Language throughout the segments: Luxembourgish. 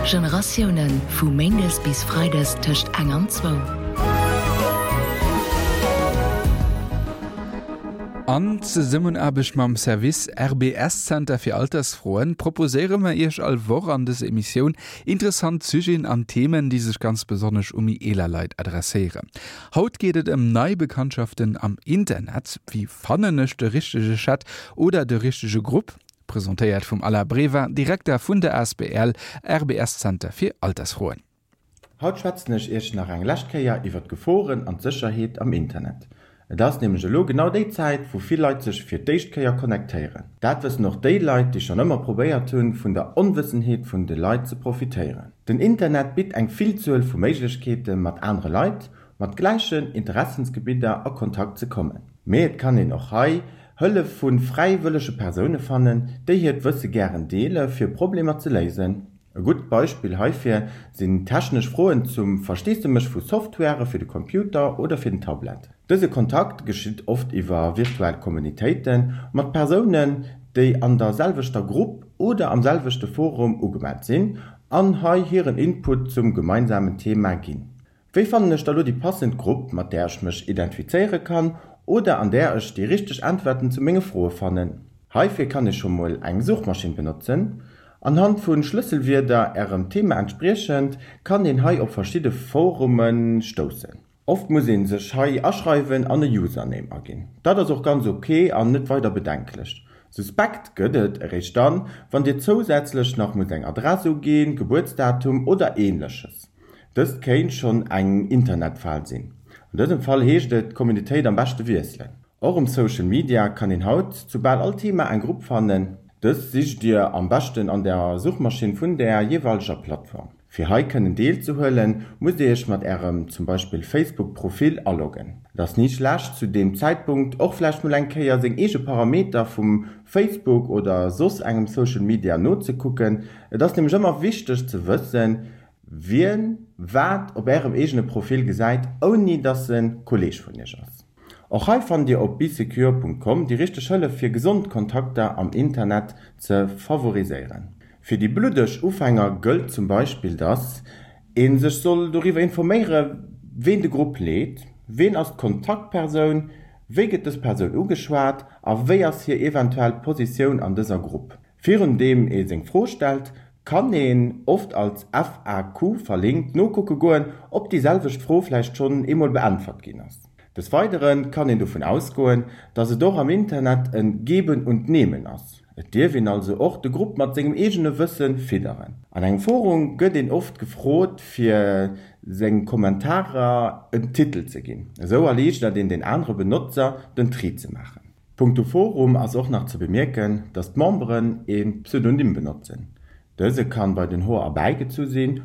Generatiounen, vu méindes bis freides tëscht eng an zwou. An Zesummenaarbecht mam Service RBS Zenter fir Altersfroen proposéiere mer Iech all Woch an dëser Emissioun interessant Sujeten an Themen, déi sech ganz besonnesch u méi eeler Leit adresséieren. Haut geet et ëm nei Bekanntschaften am Internet. Wéi fannen ech de richtege Chat oder de richtege Grupp? Presentéiert vum Alain Breva, Direkter vun der asbl RBS Zenter fir Altersfroen. Haut schwätzen ech iech nach eng lescht Kéier iwwer d'Geforen an d'Sécherheet am Internet. Et ass nämlech elo genau déi Zäit, wou vill Leit sech fir d'éischt Kéier connectéieren. Dat wëssen och déi Leit, déi schonn ëmmer probéiert hunn, vun der Onwëssenheet vun de Leit ze profitéieren. Den Internet bitt eng Villzuel vu Méiglechkeete mat anere Leit mat gläichen Interessensgebidder a Kontakt ze kommen. Mee et kann een och hei Hëllef vu fräiwëllege Persoune fannen, déi hiert Wësse gären deele fir Problemer ze léisen. E gutt Beispill heifir sinn technesch Froen zum Versteesdemech vu Software fir de Computer oder fir den Tablet. Dëse Kontakt geschitt oft iwwer virtuell Kommunitéite mat Persounen, déi an der selwechter Grupp oder am selwechte Forum ugemellt sinn an hei hiren Input zum gemeinsamen Thema ginn. Wéi fannen ech da lo déi passend Grupp, mat där ech mech identifizéiere kann oder an där ech déi richteg Äntwerten zu menge Froe fannen? Heifir kann ee scho mol eng Suchmaschinn benotzen. Anhand vu Schlësselwierder ärem Thema entspriechend kann een hei op verschidde Forume stoussen. Oft muss ee sech hei aschreiwen an e Username aginn. Dat ass och ganz ok an net weider bedenklech. Suspekt gëtt et eréischt dann, wann dir zousätzlech nach musst eng Adress uginn, Gebuertsdatum oder ähnleches. Dëst kéint schonn eng Internetfal sinn. An dësem Fall heescht et, d'Communitéit am beschte wiesselen. Och um Social Media kann een haut zu bal all Thema eng Grupp fannen. Dës sicht dir am beschten an der Suchmaschinn vun der jeeweileger Plattform. Fir hei kënnen deelzehuelen, musst dir iech mat ärem zum Beispill Facebook Profil aloggen. Et ass ni schlecht zu deem Zäitpunkt och vläicht mol eng Kéier seng eege Parameter vum Facebook oder soss engem Social Media nozekucken. Et ass nämlech ëmmer wichteg ze wëssen, Wien wat op ärem eegene Profil gesäit, ouni dass en Kolleeg vun iech ass. Och hei fannt dir op besecure.com déi richteg Hëllef fir gesond Kontakter am Internet ze favoriséieren. Fir déi bluddeg Ufänger gëllt zum Beispill dass een sech soll doriwwer informéiere ween de Grupp leet, ween ass d'Kontaktpersoun, wéi gëtt dës Persoun ugeschwat a wéi ass hir eventuell Positioun an dëser Grupp. Virun deem ee seng Fro stellt, kann een, oft als FAQ verlinkt, nokucke goen, ob déi selwecht Fro vläicht schonn eemol beäntwert ginn ass. Des Weidere kann een dovun ausgoen, dass et och am Internet e Geben und Nehmen ass. Et dierf een also och de Grupp mat sengem eegene Wësse fidderen. An engem Forum gëtt een oft gefrot, fir seng Kommentarer en Titel ze ginn. Esou erliichtert een den anere Benotzer den Tri ze maachen. Punkto Forum ass och nach ze bemierken, dass d'Memberen ee Pseudonym benotzen. Dëse kann bei den Hoer erbäigezu sinn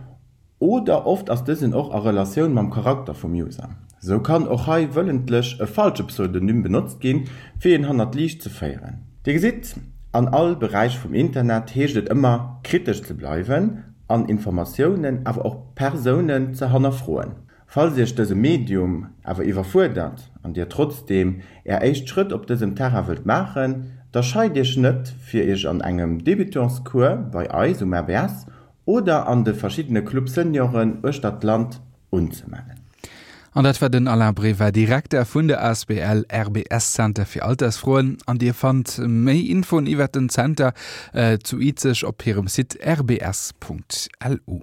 oder oft ass dësen och a Relatioun mam Charakter vum User. Sou kann och hei wëllentlech e falsche Pseudonym benotzt ginn, fir een hannert d'Liicht ze féieren. Dir gesitt, an all Beräich vum Internet heescht et ëmmer kritesch ze bleiwen an Informatiounen, awer och Persounen ze hannerfroen. Falls Iech dëse Medium awer iwwerfuerdert an Dir trotzdeem Är éischt Schrëtt op dësem Terrain wëllt maachen, da scheit Iech net fir Iech an engem Débutants-Cours bei eis um RBS oder an de verschiddene Club Senioren uechter d'Land unzemellen. An dat war den Alain Breva, Direkter vun der asbl RBS Center fir Altersfroen. An Dir fannt méi Infoen iwwert den Zenter zu Izeg op hirem Site rbs.lu.